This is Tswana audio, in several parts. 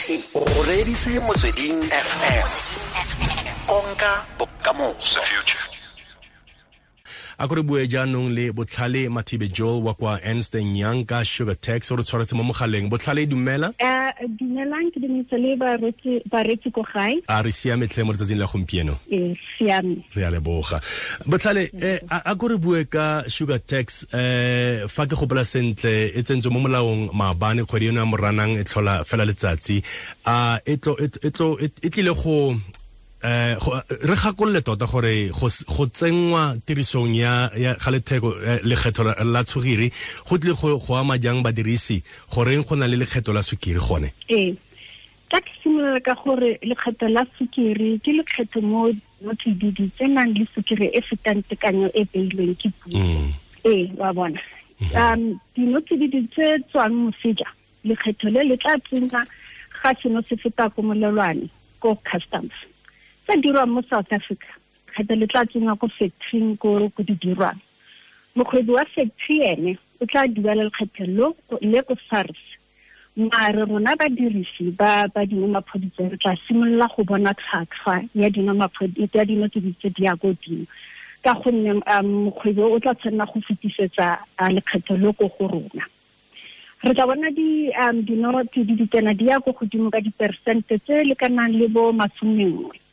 O reditse Motsweding FM. Konka bokamoso. A ko re bue jaanong le Botlhale Mathibe Joel wa kwa Ernst & Young ka sugar tax o re tshwaretse mo mogaleng. Botlhale, dumela. Dumelang, ke dumedisa le bareetsi ko gae. A re siame tlhe mo letsatsing la gompieno? Ee, siame. Re a leboga. Botlhale, a ko re bue ka sugar tax. Fa ke gopola sentle, e tsentswe mo molaong maabane, kgwedi eno ya Moranang e tlhola fela letsatsi. A e tlile go re gakolole tota gore go tsenngwa tirisong ya ga letheko lekgetho la sukiri go tlile go ama jang badirisi, goreng go na le lekgetho la sukiri gone? Ee, ka ke simolola ka gore lekgetho la sukiri ke lekgetho mo tsididi tse nang le sukiri e fetang tekanyo e beilweng ke puso. Ee, wa bona. Dino tsididi tse tswang moseja, lekgetho le le tla tsenya ga seno se feta ko molelwane ko customs. Tse dirwang mo South Africa, kgetho le tla tsengwa ko factory ko di dirwang. Mokgwebi wa factory ene o tla duela lekgetho le ko SARS. Mare rona badirisi ba dinomaphodi re tla simolola go bona tlhwatlhwa ya dinomaphodi ya dino tse di ya ko godimo, ka gonne mokgwebi o tla tshwanela go fetisetsa lekgetho le ko go rona. Re tla bona dino tse di tsena di ya ko godimo ka diperesente tse lekanang le bo 11.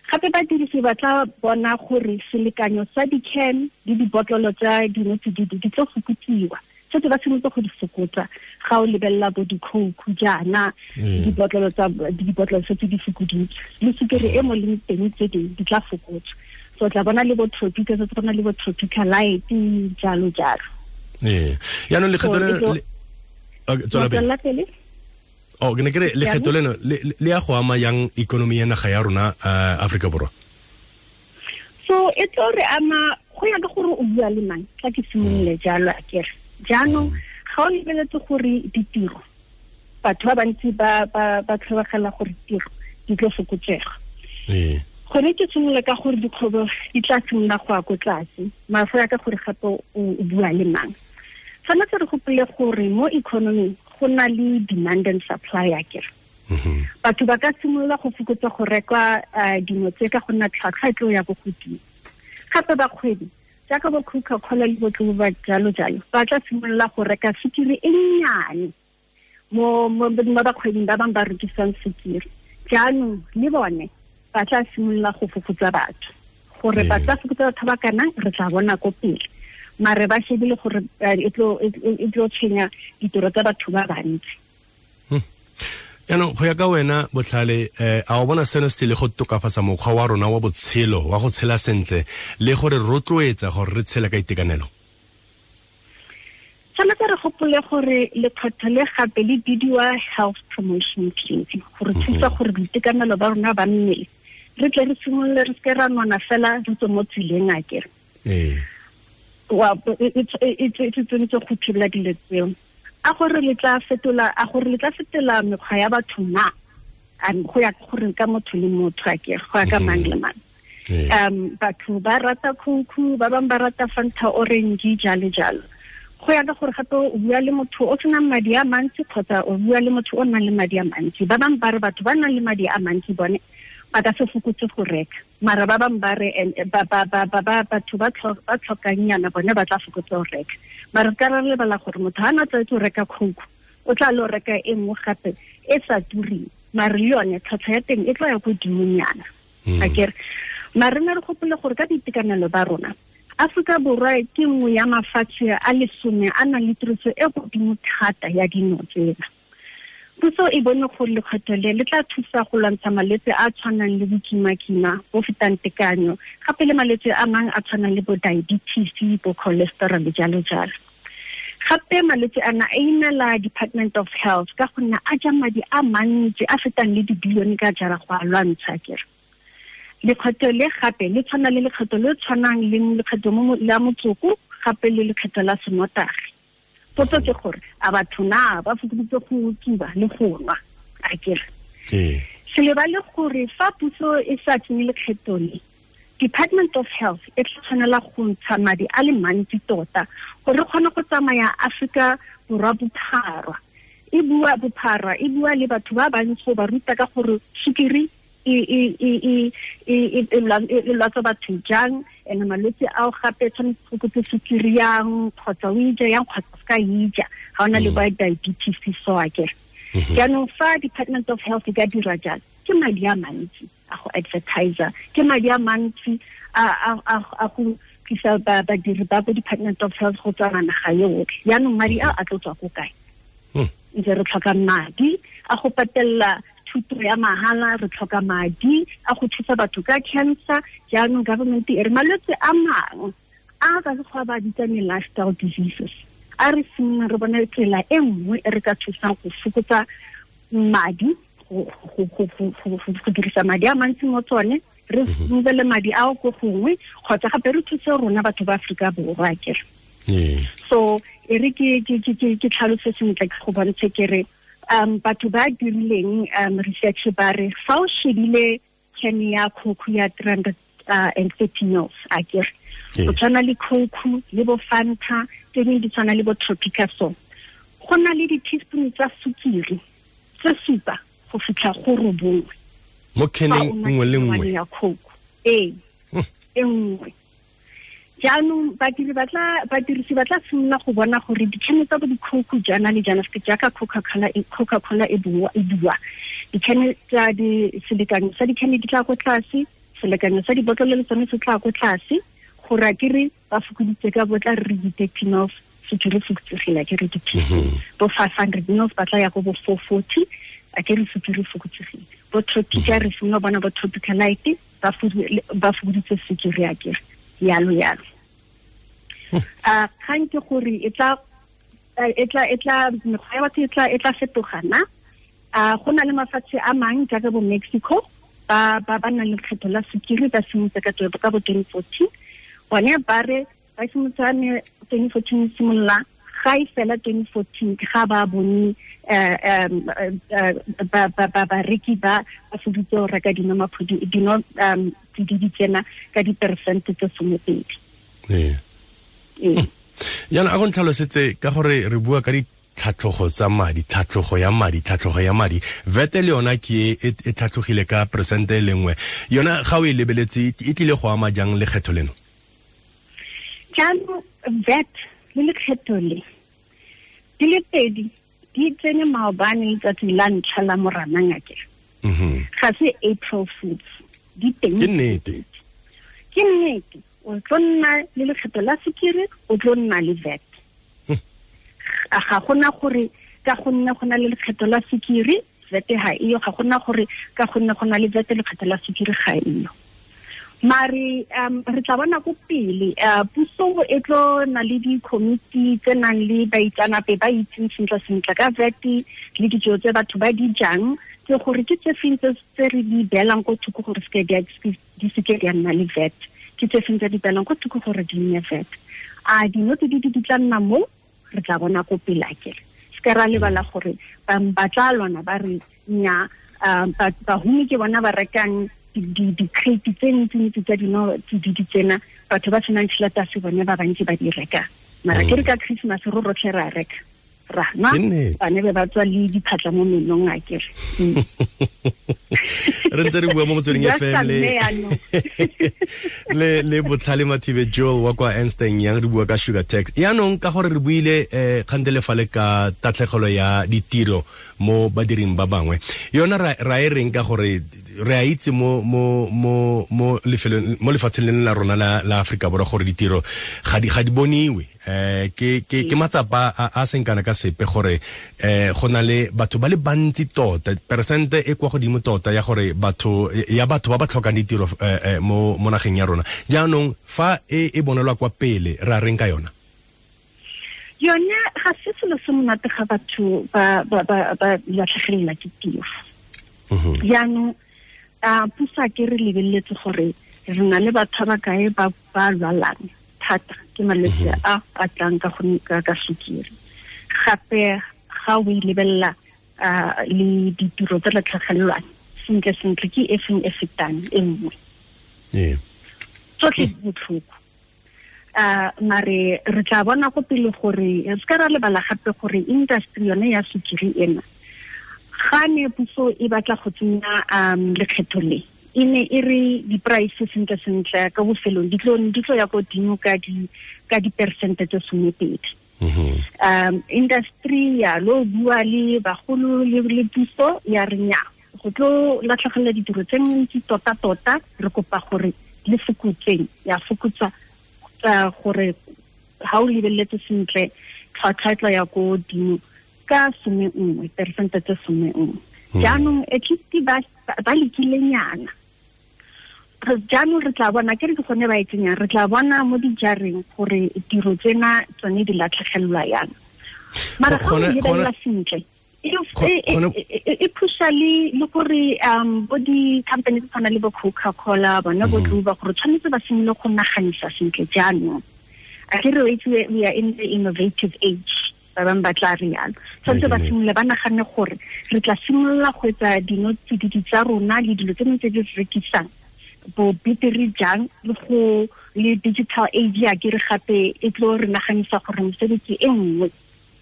Gape badirisi ba tla bona gore selekanyo sa di-can le dibotlolo tsa dino tsididi di tlo fokotsiwa. Setse ba simolotse go di fokotsa ga o lebelela bo di-Coke jaana, dibotlolo setse di fokoditswe, le sukiri e mo leng teng tse dingwe di tla fokotswa. So tla bona le bo Tropica, setse go na le bo Tropica Light, jalo jalo. Ee, jaanong lekgetho le pele. Oh, ke ne ke re lekgetho leno le ya go ama yang ikonomi ya naga ya rona Afrika Borwa? So e tlo re ama go ya ka gore o bua le mang, tla ke simolole jalo a kere. Jaanong ga o lebeletse gore ditiro, batho ba bantsi ba tlhobogela gore tiro di tlo fokotsega. Gone ke simolola ka gore dikgwebo di tla simolola go ya ko tlase, mara go ya ka gore gape o bua le mang. Tshwanetse re gopole gore mo economy go na le demand and supply a kere. Batho ba ka simolola go fokotsa go reka dino tse ka go nna tlhwatlhwa e tlo ya ko godimo. Gape bakgwebi jaaka bo Coca-Cola le bo ba jalo jalo ba tla simolola go reka sukiri e nnyane mo bakgwebing ba bangwe ba rekisang sukiri. Jaanong le bone ba tla simolola go fokotsa batho, gore ba tla fokotsa batho ba kana re tla bona ko pele. Mare ba shebile gore e tlo tshwenya ditiro tsa batho ba bantsi. Jaanong go ya ka wena Botlhale, a o bona seno se tlile go tokafatsa mokgwa wa rona wa botshelo wa go tshela sentle le gore rotloetsa gore re tshele ka itekanelo? Tshwanetse re gopole gore lekgetho le gape le bidiwa health promotion levy, gore thusa gore boitekanelo ba rona ba mmele re tle re simolole, re seke ra nona fela re tswe mo tseleng a kere. Ee. Wa e tsentse go thibela dilo tseo. A gore le tla fetola mekgwa ya batho na, go ya gore ka motho le motho a kere, go ya ka mang le mang. Batho ba rata Coke, ba bangwe ba rata Fanta orange, jalo jalo. Go ya ka gore gape o bua le motho o senang madi a mantsi kgotsa o bua le motho o nang le madi a mantsi. Ba bangwe ba re batho ba nang le madi a mantsi bone ba ka se fokotse go reka, mara ba bangwe ba re batho ba tlhokang bone ba tla fokotsa go reka. Mara ka re lebala gore motho ha na tlwaetse go reka Coke, o tla lo reka e nngwe gape e sa tureng, mare le yone tlhwatlhwa ya teng e tlo ya ko godimonyana. Akere mare ne re gopole gore ka boitekanelo ba rona, Afrika Borwa ke nngwe ya mafatshe a 10 a nang le tiriso e godimo thata ya dino tsena. Puso e bone gore lekgetho le le tla thusa go lwantsha malwetse a tshwanang le bokimakima bo fetang tekanyo, gape le malwetse a mangwe a tshwanang le bo diabetes, bo cholesterol jalo jalo. Gape malwetse ana a inela Department of Health ka gonne a ja madi a mantsi a fetang le dibilione ka jara go a lwantsha kere. Lekgetho le gape le tshwana le lekgetho le tshwanang le lekgetho la motsoko, gape le lekgetho la senotagi. Potso ke gore a batho na ba fokoditse go tsuba le go nwa a kere. Se lebale gore fa puso e sa tsenye lekgetho le, Department of Health e tla tshwanela go ntsha madi a le mantsi tota gore re kgone go tsamaya Afrika Borwa bophara e bua bophara, e bua le batho ba bantsi go ba ruta ka gore sukiri e lwatsa batho jang, and malwetse ao gape tshwanetse go fokotse sukiri yang kgotsa o ija yang kgotsa se ka ija ga ona le ba diabetes so akere. Jaanong fa Department of Health e ka dira jalo, ke madi a mantsi a go advertiser, ke madi a mantsi a go tlisa badiri ba ko Department of Health go tswa naga yotlhe. Jaanong madi a a tlo tswa ko kae? Ntse re tlhoka madi a go patella thuto ya mahala, re tlhoka madi a go thusa batho ka cancer. Jaanong government e re malwetse a mangwe a ka sekgowa ba bitsang lifestyle diseases, a re simolola re bone tsela e nngwe e re ka thusang go fokotsa madi, go dirisa madi a mantsi mo tsone, re movele madi ao ko gongwe, kgotsa gape re thuse rona batho ba Aforika Borwa akere. So e re ke tlhalose sentle ke go bontshe ke re batho ba dirileng research ba re fa o shebile can ya Coke ya 330 mils akere, go tshwana le Coke le bo Fanta tse dingwe di tshwana le bo Tropica, so go na le di-teaspoon tsa sukiri tse 7 go fitlha go 9 mo caneng nngwe le nngwe ya Coke e nngwe. Jaanong badirisi ba tla simolola go bona gore dikhene tsa bo di-Coke jaana le jaana, se jaaka Coca-Cola e bua, dikhene tsa selekanyo sa dikhene di tla ko tlase, selekanyo sa dibotlolo le tsone se tla ko tlase, gore akere ba fokoditse ka bo tla re di-30 mils sukiri fokotsegile akere di-teaspoon, bo 500 mils ba tla ya go bo 440 akere sukiri fokotsegile, bo Tropica re simolola bona bo Tropica Light ba fokoditse sukiri akere, yalo yalo. Kgang ke gore e tla mekgwa ya batho e tla fetoga na. Go na le mafatshe a mang jaaka bo Mexico ba ba nang le lekgetho la sukiri, ba simolotse ka bo 2014. Bone ba re ba simolotse 2014 simolola ga e fela 2014 ga ba bone bareki ba foditse go reka dino tsididi tsena ka diperesente tse 12. Jaanong a go ntlhalosetse ka gore re bua ka ditlhatlhogo tsa madi, tlhatlhogo ya madi, tlhatlhogo ya madi, VAT le yona ke e tlhatlhogile ka peresente e le nngwe, yona ga o e lebeletse e tlile go ama jang lekgetho leno? Jaanong VAT le lekgetho le di le pedi di tsene maobane letsatsi la ntlha la Moranang akere. Ga se April Fools, di teng. Ke nnete. Ke nnete. O tlo nna le lekgetho la sukiri, o tlo nna le VAT. Ga gona gore ka gonne go na le lekgetho la sukiri VAT ga eyo, ga gona gore ka gonne go na le VAT lekgetho la sukiri ga eyo. Mare re tla bona ko pele, puso e tlo na le di-committee tse nang le baitsanape ba itseng sentle sentle ka VAT le dijo tse batho ba di jang, tse gore ke tse feng tse re di beelang ko thoko gore di seke di a nna le VAT, ke tse feng tse di beelang ko thoko gore di nne VAT. A dino tse di tla nna mo, re tla bona ko pele akere. Se ka ra lebala gore ba tla lwana ba re nya bahumi ke bona ba rekang di-crate tse ntsi-ntsi tsa dino tsididi tsena, batho ba senang tšhelete a se bone ba bantsi ba di reka. Mara ke re ka Christmas ro rotlhe ra reka, ra nwa, bane be ba tswa le diphatla mo menong akere. Re ntse re bua mo Motsweding FM le Botlhale Mathibe Joel wa kwa Ernst & Young, re bua ka sugar tax. Yaanong ka gore re buile kgante le fale ka tatlhegelo ya ditiro mo badiring ba bangwe, yona ra e reng ka gore re a itse mo lefatsheng leno la rona la Aforika Borwa gore ditiro ga di boniwe, ke matsapa a seng kana ka sepe gore go na le batho ba le bantsi tota, peresente e kwa godimo tota ya gore batho ba ba tlhokang ditiro mo nageng ya rona. Jaanong fa e bonelwa kwa pele, ra reng ka yona? Yone ga se selo se monate ga batho ba latlhegelelwa ke tiro. Jaanong puso a ke re lebeletse gore re na le batho ba kae ba lwalang thata ke malwetse a a tlang ka sukiri. Gape ga o e lebelela le ditiro tse latlhegelelwang sentle sentle ke e feng e fetang e nngwe. Tsotlhe di botlhoko. Mare re tla bona go pele gore re ska ra lebala gape gore industry yone ya sukiri ena ga ne puso e batla go tsenya lekgetho le e ne e re di-price sentle sentle ka bofelong di tlo ya ko godimo ka di-percent tse 12. Industry ya lo bua le bagolo le puso ya re nya go tlo latlhegelwa ditiro tse ntsi tota tota, re kopa gore le fokotseng ya fokotsa gore ha o lebeletse sentle tlhwatlhwa tla ya ko godimo ka 11 percent tse 11. Jaanong at least ba lekilenyana. Jaanong re tla bona ke re ke gone ba e tsenyang, re tla bona mo dijareng gore tiro tsena tsone di latlhegelwa yang. Mara ga o lebelela sentle e pusha le gore bo di-company tse tshwana le bo Coca-Cola bona bo Tluba gore tshwanetse ba simolole go naganisa sentle jaanong. A ke re itse we are in the innovative age, ba bangwe ba tla re yalo. Tshwanetse ba simolole ba nagane gore re tla simolola go etsa dinotsididi tsa rona le dilo tse dingwe tse di rekisang bo betere jang le go le digital age ya ke re gape e tlo re naganisa gore mesebetsi e nngwe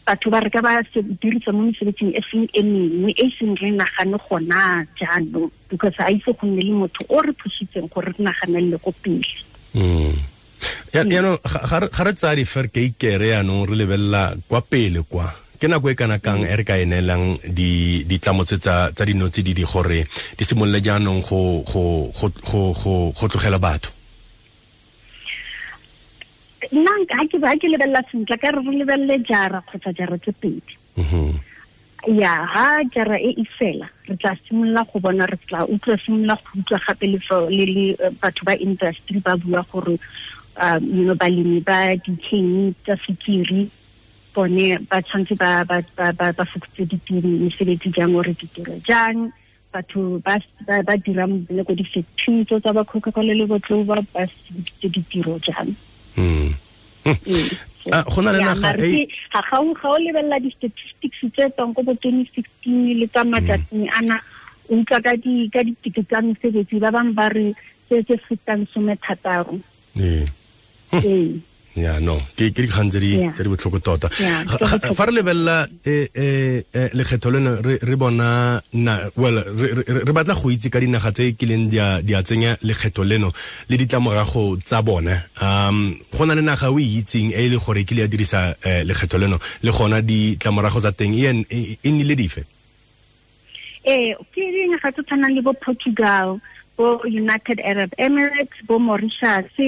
batho ba re ka ba dirisa mo mesebetsing e seng e mengwe e seng re nagane gona jaanong, because a itse go nne le motho o re phusitseng gore re naganelele ko pele. Yaanong ga re tsaya diferkeikere yaanong re lebelela kwa pele kwa ke nako e kana kang e re ka e neelang ditlamo tse tsa dinotsididi gore di simolole jaanong go tlogela batho? Nna ga ke lebelela sentle ka re lebelele jara kgotsa jara tse pedi. Ya ha jara e e fela re tla simolola go bona, re tla utlwa simolola go utlwa gape le batho ba industry ba bua gore you know balemi ba dikhemi tsa sukiri bone ba tshwanetse ba fokotse ditiro mesebetsi jang ore ditiro jang, batho ba dirang le ko di-factory tsa ba Coca-Cola le bo Tloba ba fokotse ditiro jang. Go na le naga e ga o lebelela di-statistics tse tswang ko bo 2016 le tsa matsatsing ana, o utlwa ka dikete tsa mesebetsi ba bangwe ba re tse fetang 16. Ya no ke dikgang tse di botlhoko tota. Fa re lebelela lekgetho leno re bona well re batla go itse ka dinaga tse kileng di a tsenya lekgetho leno le ditlamorago tsa bone. Go na le naga o e itseng e le gore kile ya dirisa lekgetho leno le gona ditlamorago tsa teng e nnile dife? Ke dinaga tse tshwanang le bo Portugal, bo United Arab Emirates, bo Mauritius,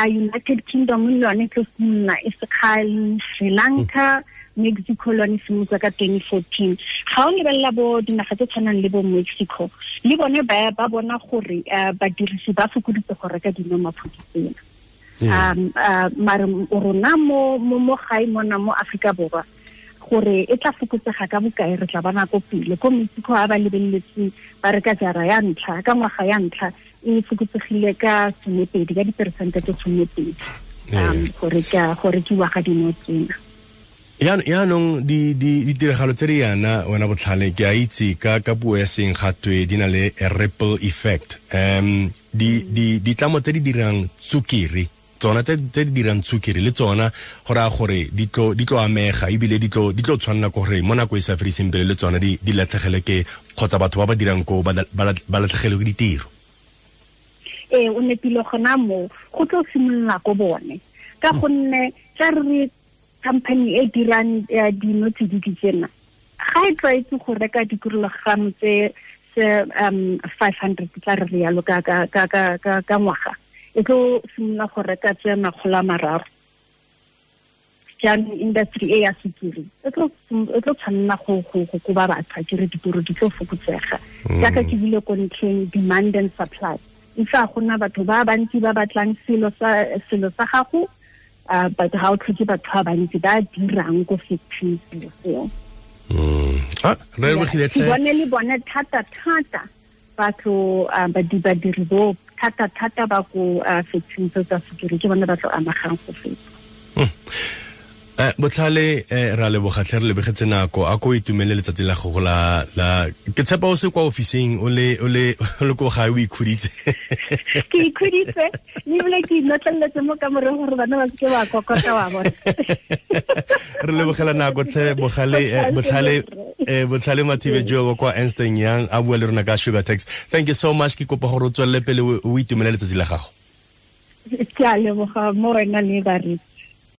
United Kingdom le yone tlo simolola e sekgale, Sri Lanka, Mexico le yone simolotse ka 2014. Ga o lebelela bo dinaga tse tshwanang le bo Mexico, le bone ba bona gore badirisi ba fokoditse go reka dinomaphodi tsena. Mare rona mo gae mona mo Afrika Borwa gore e tla fokotsega ka bokae re tla bona ko pele. Ko Mexico a ba lebeletse ba reka jara ya ntlha ka ngwaga ya ntlha e fokotsegile ka 12 ka diperesente tse 12 go rekiwa ga dino tsena. Yaanong ditiragalo tse di yana wena Botlhale ke a itse ka puo ya seng gatwe di na le a ripple effect. Ditlamo tse di dirang tsukiri tsona tse di dirang tsukiri le tsona go raya gore di tlo amega ebile di tlo tshwanela ke gore mo nako e sa fediseng pele le tsona di latlhegele ke kgotsa batho ba ba dirang koo ba latlhegele ke ditiro. O nepile gona mo go tlo simolola ko bone ka gonne tla re company e dirang dinotsididi tsena ga e tlwaetse go reka dikilogram tse 500 tla re yalo ka ngwaga e tlo simolola go reka tse 300. Jaanong industry e ya sukiri e tlo tshwanela go koba batho ke re ditiro di tlo fokotsega. Jaaka ke bile ko ntlheng demand and supply, e fa gona batho ba bantsi ba batlang selo sa gago, but ga o tlhoke batho ba bantsi ba dirang ko factory selo seo. Re lebogile tlhe. Bone le bone thata thata batho badiri bo thata thata ba ko factory tsa sukiri ke bone ba tlo amegang go feta. Botlhale, ra leboga tlhe, re lebegetse nako. A ko itumele letsatsi la gago la ke tshepa o se kwa ofising, o le o le o le ko gae, o ikhuditse. Ke ikhuditse, mme ebile ke inotleletse mo kamoreng gore bana ba seke ba kokota wa bona. Re lebogela nako tlhe, Bogale, Botlhale, Botlhale Mathibe jo kwa Ernst Young, a bua le rona ka sugar tax. Thank you so much. Ke kopa gore o tswelele pele, o itumele letsatsi la gago. Ke a leboga mo wena le baretsi.